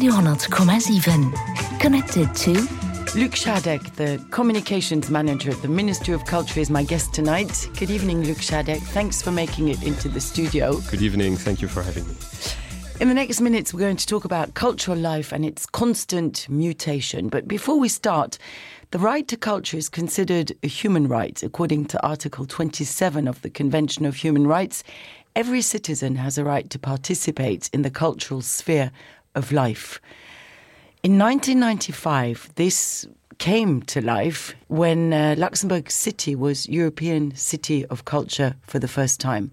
Radio,7 connected to Luc Shadek, the Communications Manager at the Ministry of Culture, is my guest tonight. Good evening, Luc Shadek. Thanks for making it into the studio. Good evening. Thank you for having me. In the next minutes, we're going to talk about cultural life and its constant mutation. But before we start, the right to culture is considered a human right. According to Article 27 of the Convention of Human Rights, every citizen has a right to participate in the cultural sphere of life. In 1995, this came to life when Luxembourg City was European City of Culture for the first time.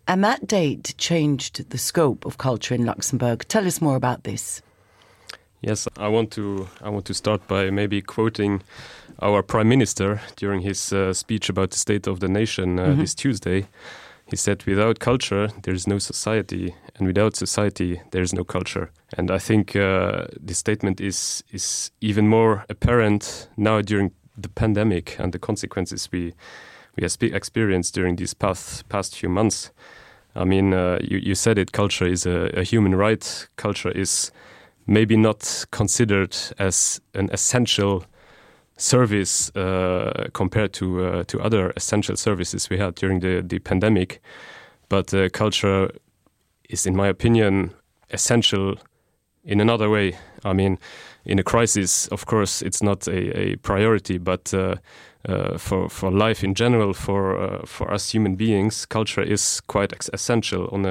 And that date changed the scope of culture in Luxembourg. Tell us more about this. Yes, I want to start by maybe quoting our Prime Minister during his speech about the state of the nation this Tuesday. He said, without culture, there is no society, and without society, there is no culture. And I think this statement is even more apparent now during the pandemic and the consequences we have experienced during these past few months. I mean, you said it, culture is a human right. Culture is maybe not considered as an essential service compared to other essential services we had during the pandemic. But culture is, in my opinion, essential in another way. I mean, in a crisis, of course, it's not a priority, but for life in general, for us human beings, culture is quite essential on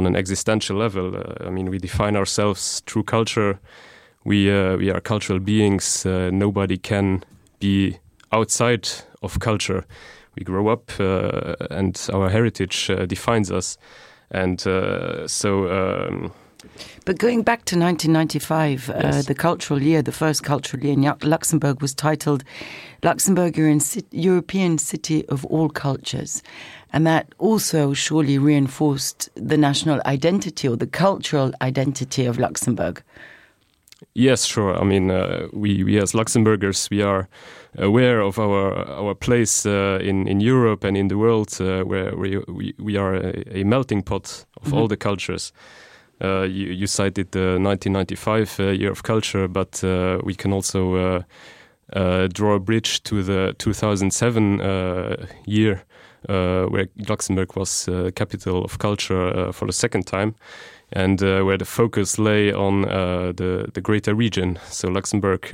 an existential level. I mean, we define ourselves through culture. We are cultural beings. Nobody can be outside of culture. We grow up and our heritage defines us. And But going back to 1995, yes. the cultural year, the first cultural year in Luxembourg was titled Luxembourg European City of All Cultures. And that also surely reinforced the national identity or the cultural identity of Luxembourg. Yes, sure. I mean, we as Luxembourgers, we are aware of our place in Europe and in the world, where we are a melting pot of all the cultures. You cited the 1995 year of culture, but we can also draw a bridge to the 2007 year, where Luxembourg was capital of culture for the second time. And where the focus lay on the greater region. So Luxembourg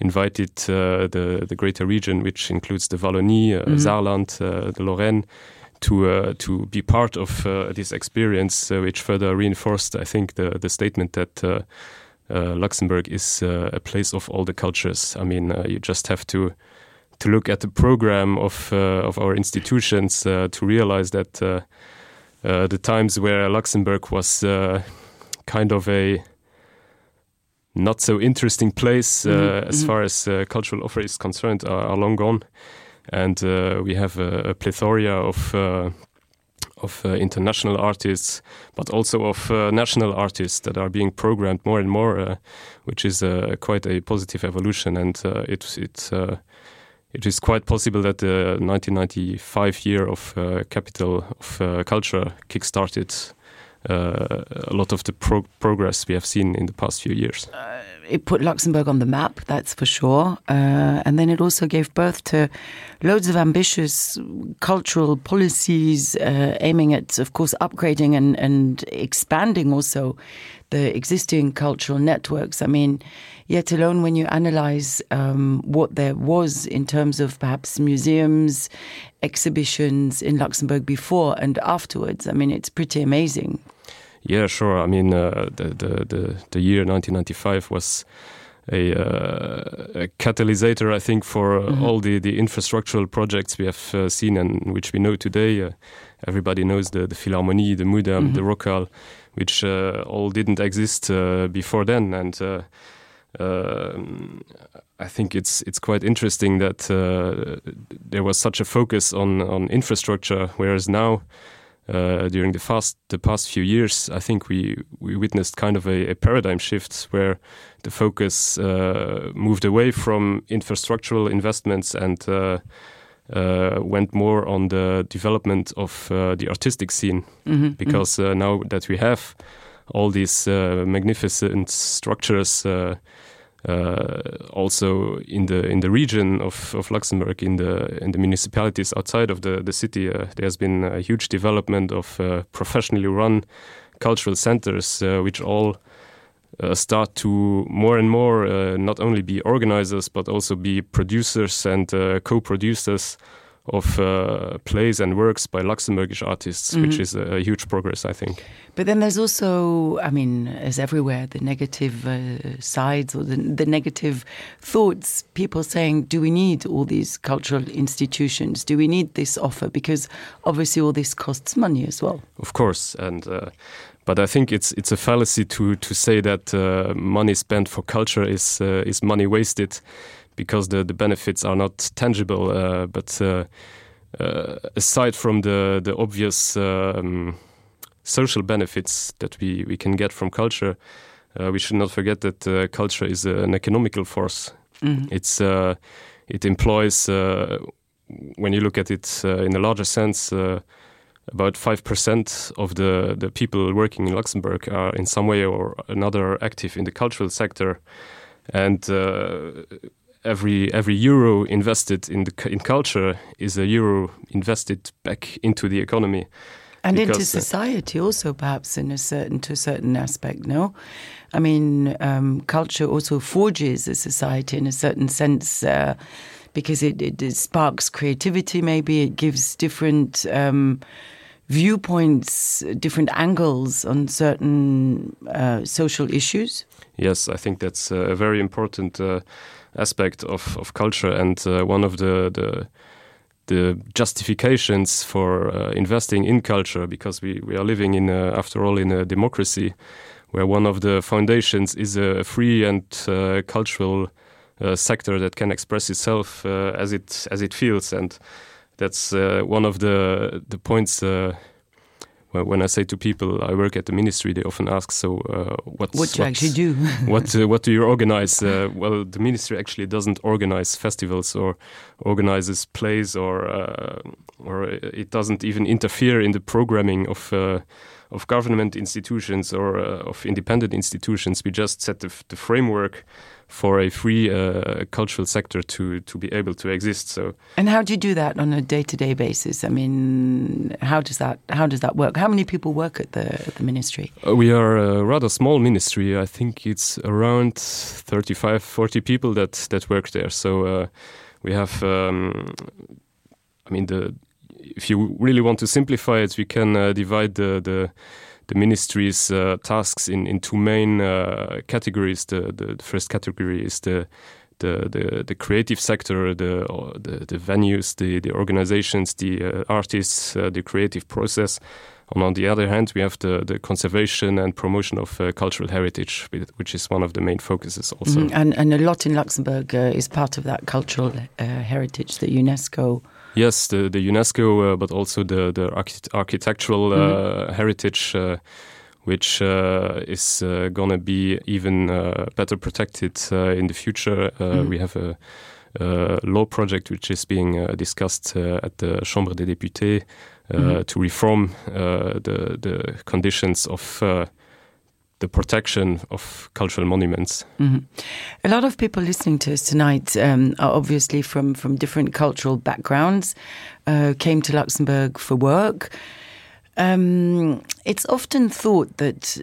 invited the greater region, which includes the Wallonie, Saarland, the Lorraine, to be part of this experience, which further reinforced, I think, the statement that Luxembourg is a place of all the cultures. I mean, you just have to look at the program of our institutions to realize that the times where Luxembourg was kind of a not so interesting place as far as cultural offer is concerned are long gone. And we have a plethora of international artists, but also of national artists that are being programmed more and more, which is quite a positive evolution. And it is quite possible that the 1995 year of Capital of Culture kickstarted a lot of the progress we have seen in the past few years. It put Luxembourg on the map, that's for sure. And then it also gave birth to loads of ambitious cultural policies aiming at, of course, upgrading and expanding also the existing cultural networks. I mean, yet alone when you analyze what there was in terms of perhaps museums, exhibitions in Luxembourg before and afterwards, I mean, it's pretty amazing. Yeah, sure. I mean, the year 1995 was a catalysator, I think, for all the infrastructural projects we have seen and which we know today. Everybody knows the Philharmonie, the Mudam, the Rockhal, which all didn't exist before then. And I think it's quite interesting that there was such a focus on infrastructure, whereas now, during the past few years, I think we witnessed kind of a paradigm shift where the focus moved away from infrastructural investments and went more on the development of the artistic scene, because now that we have all these magnificent structures. Also in the region of Luxembourg, in the municipalities outside of the city, there's been a huge development of professionally run cultural centers, which all start to more and more not only be organizers but also be producers and co-producers of plays and works by Luxembourgish artists, which is a huge progress, I think. But then there's also, I mean, as everywhere, the negative sides or the negative thoughts, people saying, do we need all these cultural institutions? Do we need this offer? Because obviously all this costs money as well. Of course, and but I think it's a fallacy to say that money spent for culture is money wasted, because the benefits are not tangible. But aside from the obvious social benefits that we can get from culture, we should not forget that culture is an economical force. It employs, when you look at it in a larger sense, about 5% of the people working in Luxembourg are in some way or another active in the cultural sector, and every euro invested in culture is a euro invested back into the economy. And into society also, perhaps to a certain aspect, no? I mean, culture also forges a society in a certain sense, because it sparks creativity, maybe. It gives different viewpoints, different angles on certain social issues. Yes, I think that's a very important aspect of culture, and one of the justifications for investing in culture, because we are living in, after all, in a democracy where one of the foundations is a free and cultural sector that can express itself as it feels, and that's one of the points. When I say to people I work at the ministry, they often ask, so what do you actually do? what do you organize? Well, the ministry actually doesn't organize festivals or organizes plays, or it doesn't even interfere in the programming of government institutions or of independent institutions. We just set the framework for a free cultural sector to be able to exist. So, and how do you do that on a day-to-day basis? I mean, how does that work? How many people work at the ministry? We are a rather small ministry. I think it's around 35-40 people that work there. So we have, if you really want to simplify it, we can divide the ministry's tasks in two main categories. The first category is the creative sector, the venues, the organizations, the artists, the creative process. And on the other hand, we have the conservation and promotion of cultural heritage, which is one of the main focuses also. And a lot in Luxembourg is part of that cultural heritage, the UNESCO. Yes, the UNESCO, but also the architectural heritage, which is going to be even better protected in the future. We have a law project which is being discussed at the Chambre des députés to reform the conditions of the protection of cultural monuments. A lot of people listening to us tonight are obviously from different cultural backgrounds, came to Luxembourg for work. It's often thought that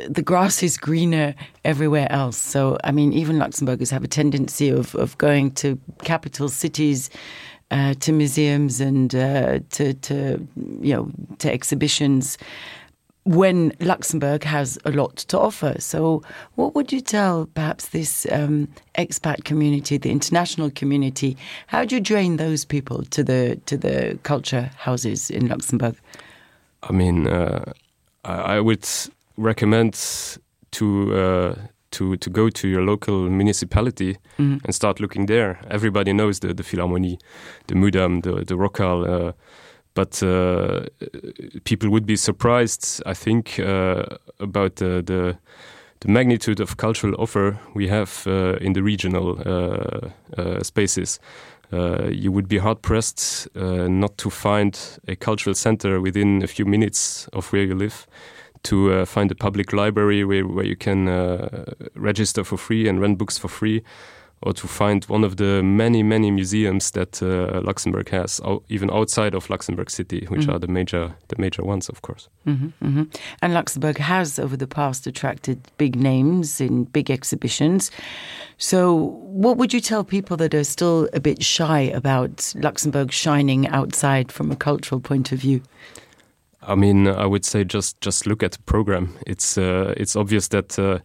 the grass is greener everywhere else. So, I mean, even Luxembourgers have a tendency of going to capital cities, to museums and to exhibitions, when Luxembourg has a lot to offer. So what would you tell perhaps this expat community, the international community? How do you drain those people to the culture houses in Luxembourg? I mean, I would recommend to go to your local municipality and start looking there. Everybody knows the Philharmonie, the Mudam, the Rockall, but people would be surprised, I think, about the magnitude of cultural offer we have in the regional spaces. You would be hard-pressed not to find a cultural center within a few minutes of where you live to find a public library where you can register for free and rent books for free, or to find one of the many museums that Luxembourg has, even outside of Luxembourg City, which are the major ones, of course. And Luxembourg has, over the past, attracted big names in big exhibitions. So what would you tell people that are still a bit shy about Luxembourg shining outside from a cultural point of view? I mean, I would say just look at the program. It's obvious that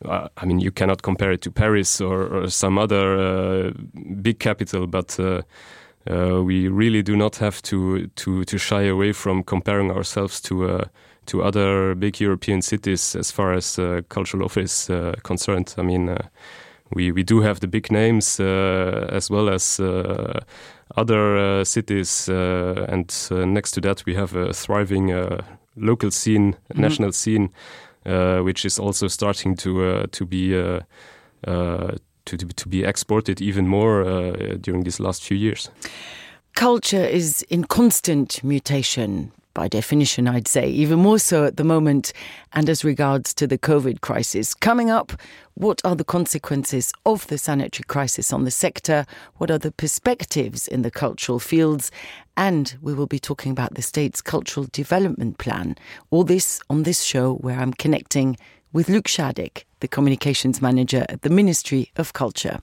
I mean, you cannot compare it to Paris or some other big capital, but we really do not have to shy away from comparing ourselves to other big European cities as far as cultural offer is concerned. I mean, we do have the big names as well as other cities, and next to that we have a thriving local scene, national scene, which is also starting to be exported even more during these last few years. Culture is in constant mutation. By definition, I'd say, even more so at the moment, and as regards to the COVID crisis. Coming up, what are the consequences of the sanitary crisis on the sector? What are the perspectives in the cultural fields? And we will be talking about the state's cultural development plan. All this on this show, where I'm connecting with Luc Schadek, the communications manager at the Ministry of Culture.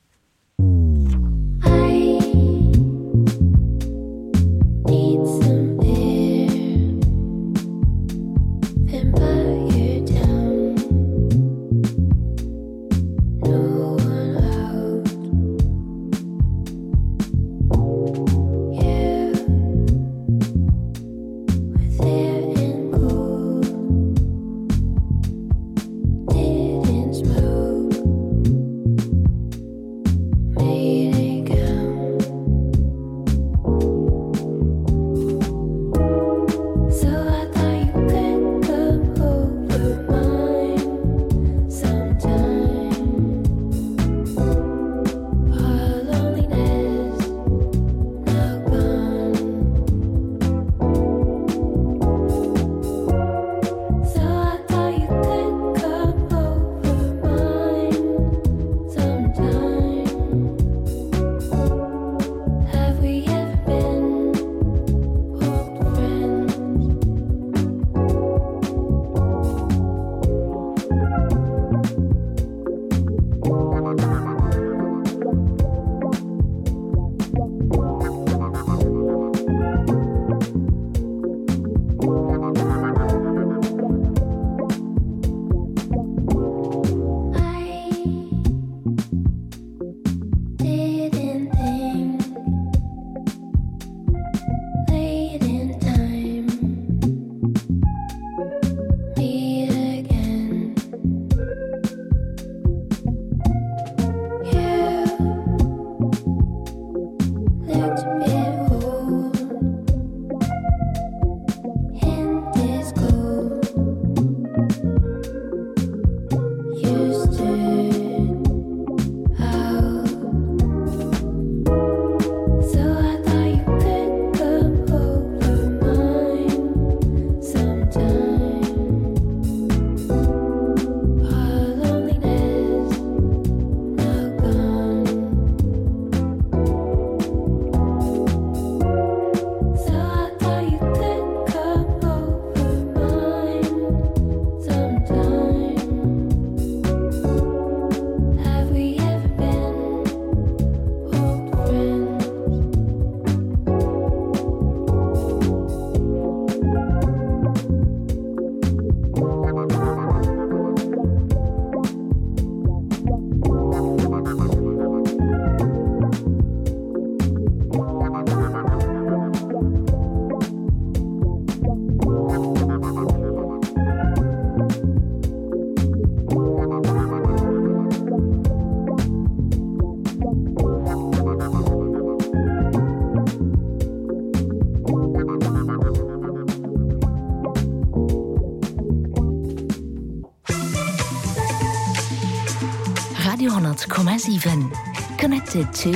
Radio 100,7. Connected to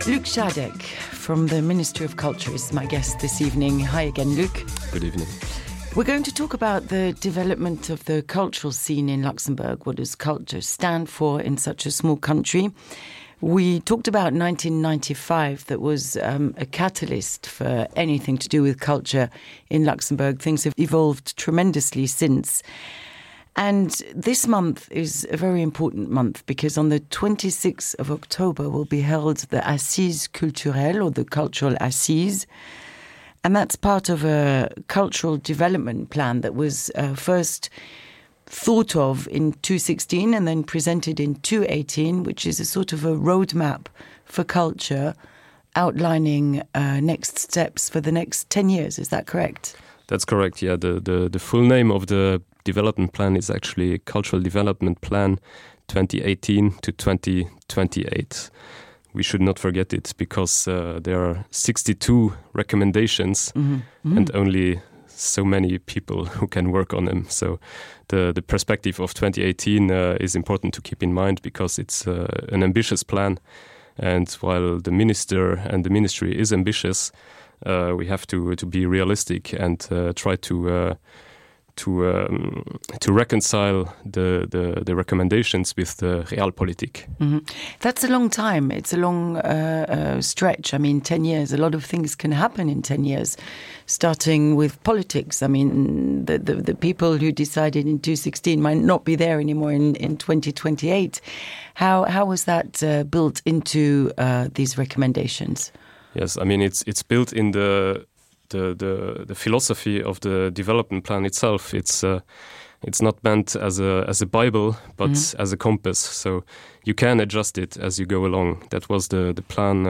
Luc Schadek from the Ministry of Culture is my guest this evening. Hi again, Luc. Good evening. We're going to talk about the development of the cultural scene in Luxembourg. What does culture stand for in such a small country? We talked about 1995, that was a catalyst for anything to do with culture in Luxembourg. Things have evolved tremendously since. And this month is a very important month because on the 26th of October will be held the Assises Culturelles, or the Cultural Assises. And that's part of a cultural development plan that was first thought of in 2016 and then presented in 2018, which is a sort of a roadmap for culture outlining next steps for the next 10 years. Is that correct? That's correct, yeah. The full name of the development plan is actually Cultural Development Plan 2018 to 2028. We should not forget it because there are 62 recommendations and only so many people who can work on them. So the perspective of 2018 is important to keep in mind because it's an ambitious plan. And while the minister and the ministry is ambitious, we have to be realistic and try to reconcile the recommendations with the realpolitik. That's a long time. It's a long stretch. I mean, 10 years. A lot of things can happen in 10 years, starting with politics. I mean, the people who decided in 2016 might not be there anymore in 2028. How was that built into these recommendations? Yes, I mean, it's built in the philosophy of the development plan itself. It's not meant as a Bible, but as a compass. So you can adjust it as you go along. That was the plan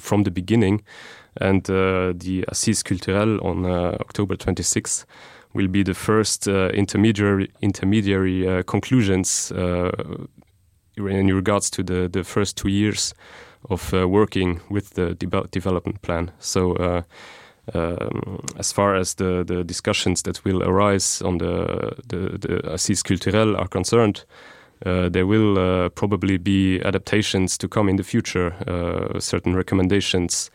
from the beginning. And the Assises Culturelles on October 26th will be the first intermediary conclusions in regards to the first 2 years of working with the development plan. So as far as the discussions that will arise on the Assises Culturelles are concerned, there will probably be adaptations to come in the future. Certain recommendations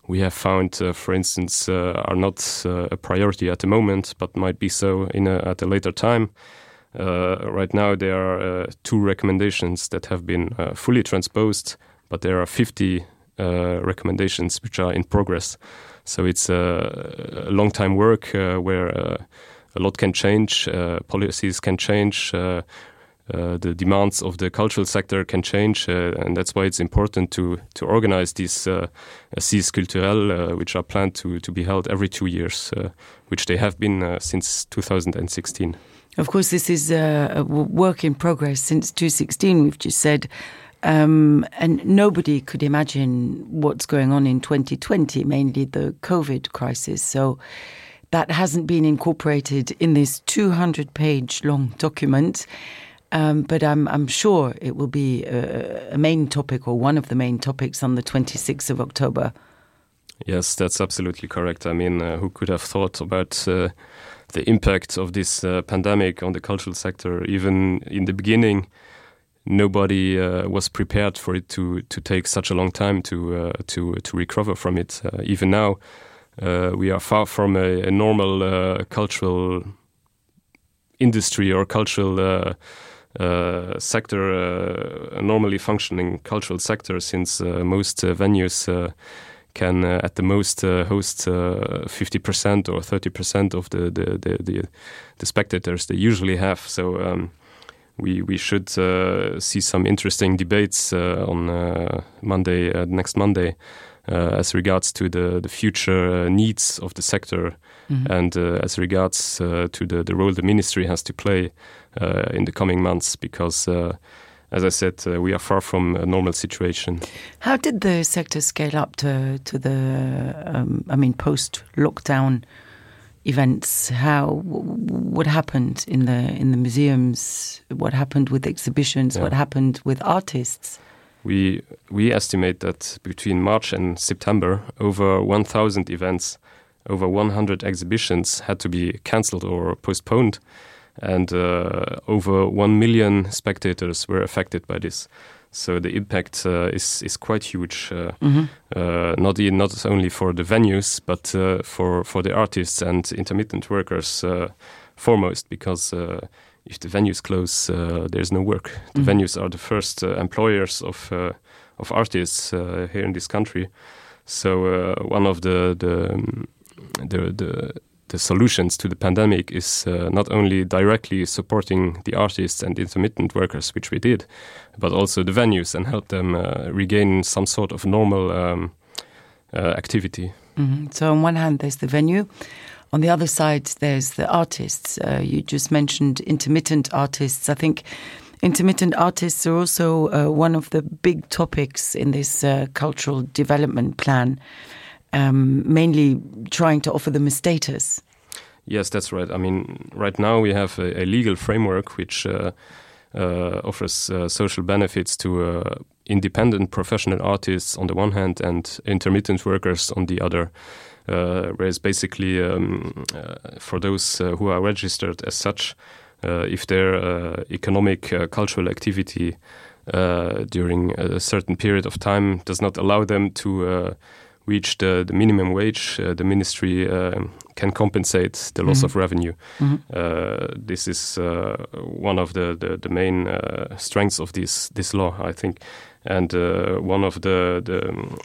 we have found, for instance, are not a priority at the moment, but might be so at a later time. Right now there are 2 recommendations that have been fully transposed, but there are 50 recommendations which are in progress. So it's a long time work where a lot can change, policies can change, the demands of the cultural sector can change, and that's why it's important to organize these Assises Culturelles, which are planned to be held every 2 years, which they have been since 2016. Of course, this is a work in progress since 2016, we've just said. And nobody could imagine what's going on in 2020, mainly the COVID crisis. So that hasn't been incorporated in this 200-page long document. But I'm sure it will be a main topic, or one of the main topics, on the 26th of October. Yes, that's absolutely correct. I mean, who could have thought about the impact of this pandemic on the cultural sector? Even in the beginning, nobody was prepared for it to take such a long time to recover from it. Even now, we are far from a normal cultural industry or cultural sector, a normally functioning cultural sector, since most venues can at the most host 50% or 30% of the spectators they usually have. So we should see some interesting debates on Monday, next Monday, as regards to the future needs of the sector, and as regards to the role the ministry has to play in the coming months, because as I said, we are far from a normal situation. How did the sector scale up to the post-lockdown events? What happened in the museums? What happened with exhibitions? Yeah. What happened with artists? We estimate that between March and September, over 1,000 events, over 100 exhibitions had to be cancelled or postponed, and over 1 million spectators were affected by this. So the impact is quite huge, not only for the venues, but for the artists and intermittent workers foremost, because if the venues close, there's no work. The venues are the first employers of artists here in this country. So one of the solutions to the pandemic is not only directly supporting the artists and intermittent workers, which we did, but also the venues and help them regain some sort of normal activity. So on one hand, there's the venue. On the other side, there's the artists. You just mentioned intermittent artists. I think intermittent artists are also one of the big topics in this cultural development plan, mainly trying to offer them a status. Yes, that's right. I mean, right now we have a legal framework which offers social benefits to independent professional artists on the one hand and intermittent workers on the other. Whereas basically for those who are registered as such, if their economic cultural activity during a certain period of time does not allow them to reach the minimum wage, the ministry can compensate the loss of revenue. This is one of the main strengths of this law, I think. And one of the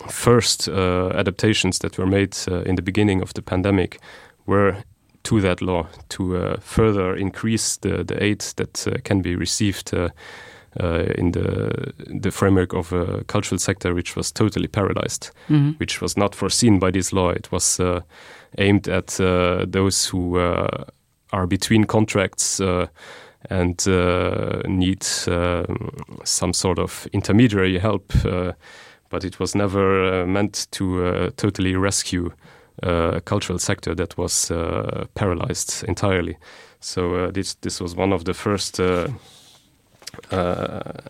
first adaptations that were made in the beginning of the pandemic were to that law to further increase the aid that can be received in the framework of a cultural sector which was totally paralyzed, which was not foreseen by this law. It was aimed at those who are between contracts and need some sort of intermediary help, but it was never meant to totally rescue a cultural sector that was paralyzed entirely. So this was one of the first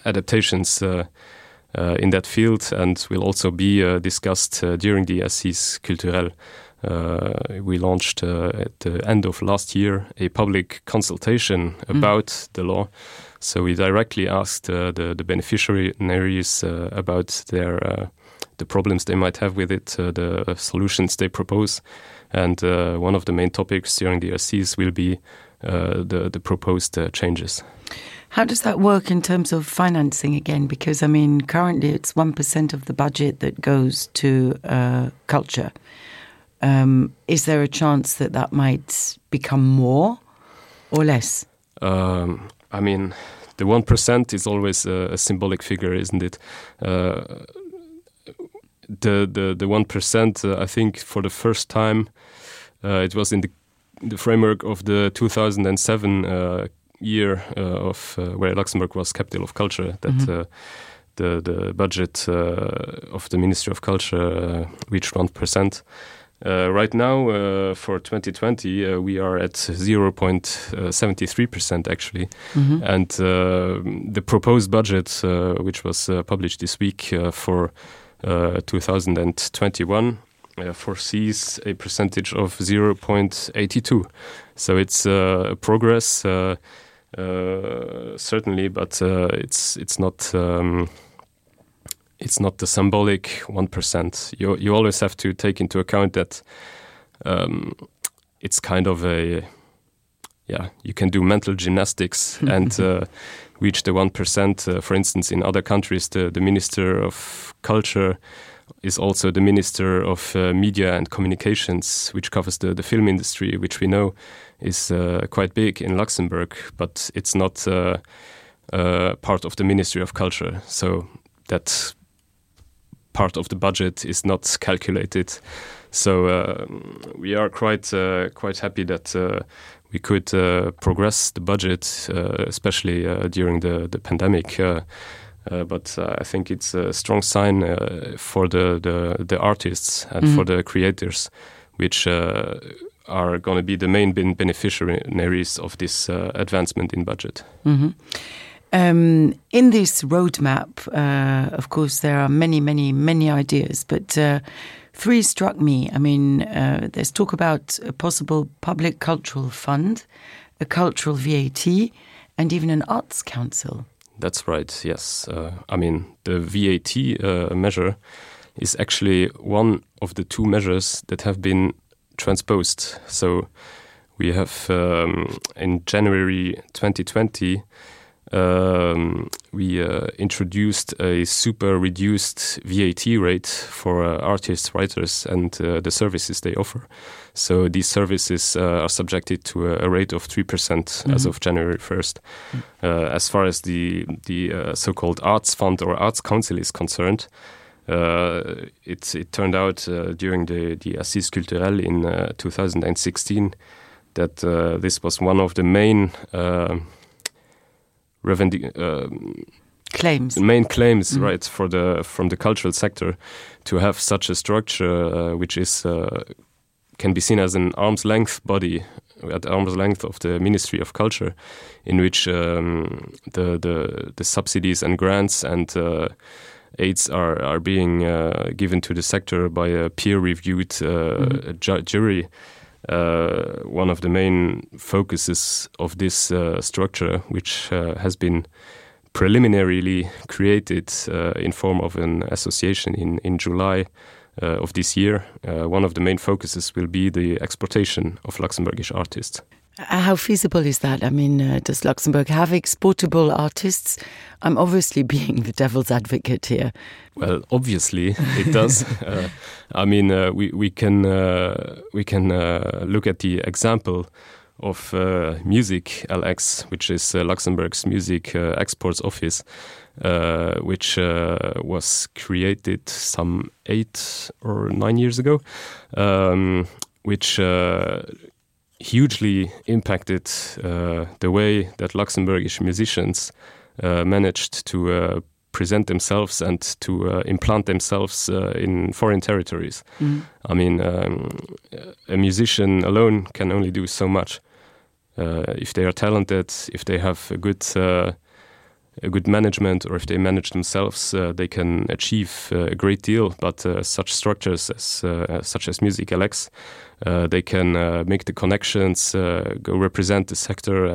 adaptations in that field, and will also be discussed during the Assises Culturelles. We launched at the end of last year a public consultation about the law. So we directly asked the beneficiaries about the problems they might have with it, the solutions they propose. And one of the main topics during the Assises will be the proposed changes. How does that work in terms of financing again? Because, I mean, currently it's 1% of the budget that goes to culture. Is there a chance that might become more or less? I mean, the 1% is always a symbolic figure, isn't it? The 1%, I think, for the first time, it was in the framework of the 2007 year of where Luxembourg was capital of culture, that the budget of the Ministry of Culture reached 1%. Right now, for 2020, we are at 0.73% actually. And the proposed budget, which was published this week for 2021, foresees a percentage of 0.82. So it's a progress, certainly, but it's not. It's not the symbolic 1%. You always have to take into account that it's kind of you can do mental gymnastics and reach the 1%. For instance, in other countries, the Minister of Culture is also the Minister of Media and Communications, which covers the film industry, which we know is quite big in Luxembourg, but it's not part of the Ministry of Culture. So that part of the budget is not calculated. So we are quite happy that we could progress the budget, especially during the pandemic. But I think it's a strong sign for the artists and for the creators, which are going to be the main beneficiaries of this advancement in budget. In this roadmap, of course, there are many ideas, but three struck me. I mean, there's talk about a possible public cultural fund, a cultural VAT, and even an arts council. That's right, yes. I mean, the VAT measure is actually one of the two measures that have been transposed. So we have, in January 2020, we introduced a super reduced VAT rate for artists, writers, and the services they offer. So these services are subjected to a rate of 3% as of January 1st. As far as the so-called Arts Fund or Arts Council is concerned, it turned out during the Assises Culturelles in 2016 that this was one of the main claims, right, from the cultural sector to have such a structure which is can be seen as an arm's length body at arm's length of the Ministry of Culture, in which the subsidies and grants and aids are being given to the sector by a peer-reviewed jury. One of the main focuses of this structure, which has been preliminarily created in form of an association in July of this year, one of the main focuses will be the exportation of Luxembourgish artists. How feasible is that? I mean, does Luxembourg have exportable artists? I'm obviously being the devil's advocate here. Well, obviously it does. I mean, we can look at the example of Music LX, which is Luxembourg's music exports office, which was created some 8 or 9 years ago, which hugely impacted the way that Luxembourgish musicians managed to present themselves and to implant themselves in foreign territories. I mean, a musician alone can only do so much. If they are talented, if they have a good management, or if they manage themselves, they can achieve a great deal. But such structures such as Music LX, they can make the connections, go represent the sector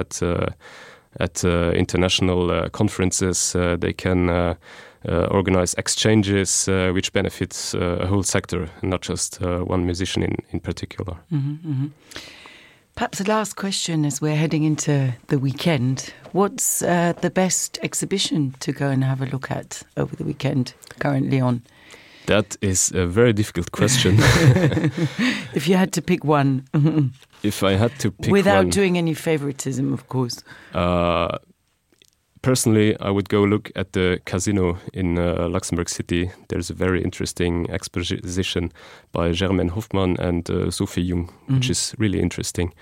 at international conferences. They can organize exchanges which benefits a whole sector, not just one musician in particular. Perhaps the last question as we're heading into the weekend. What's the best exhibition to go and have a look at over the weekend currently on? That is a very difficult question. If you had to pick one. If I had to pick without one, doing any favoritism, of course. Personally, I would go look at the Casino in Luxembourg City. There's a very interesting exposition by Germaine Hoffmann and Sophie Jung, which is really interesting.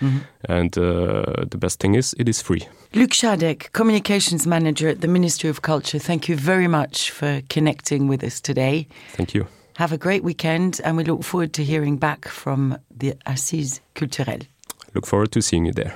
And the best thing is, it is free. Luc Schadek, Communications Manager at the Ministry of Culture, thank you very much for connecting with us today. Thank you. Have a great weekend, and we look forward to hearing back from the Assises Culturelles. Look forward to seeing you there.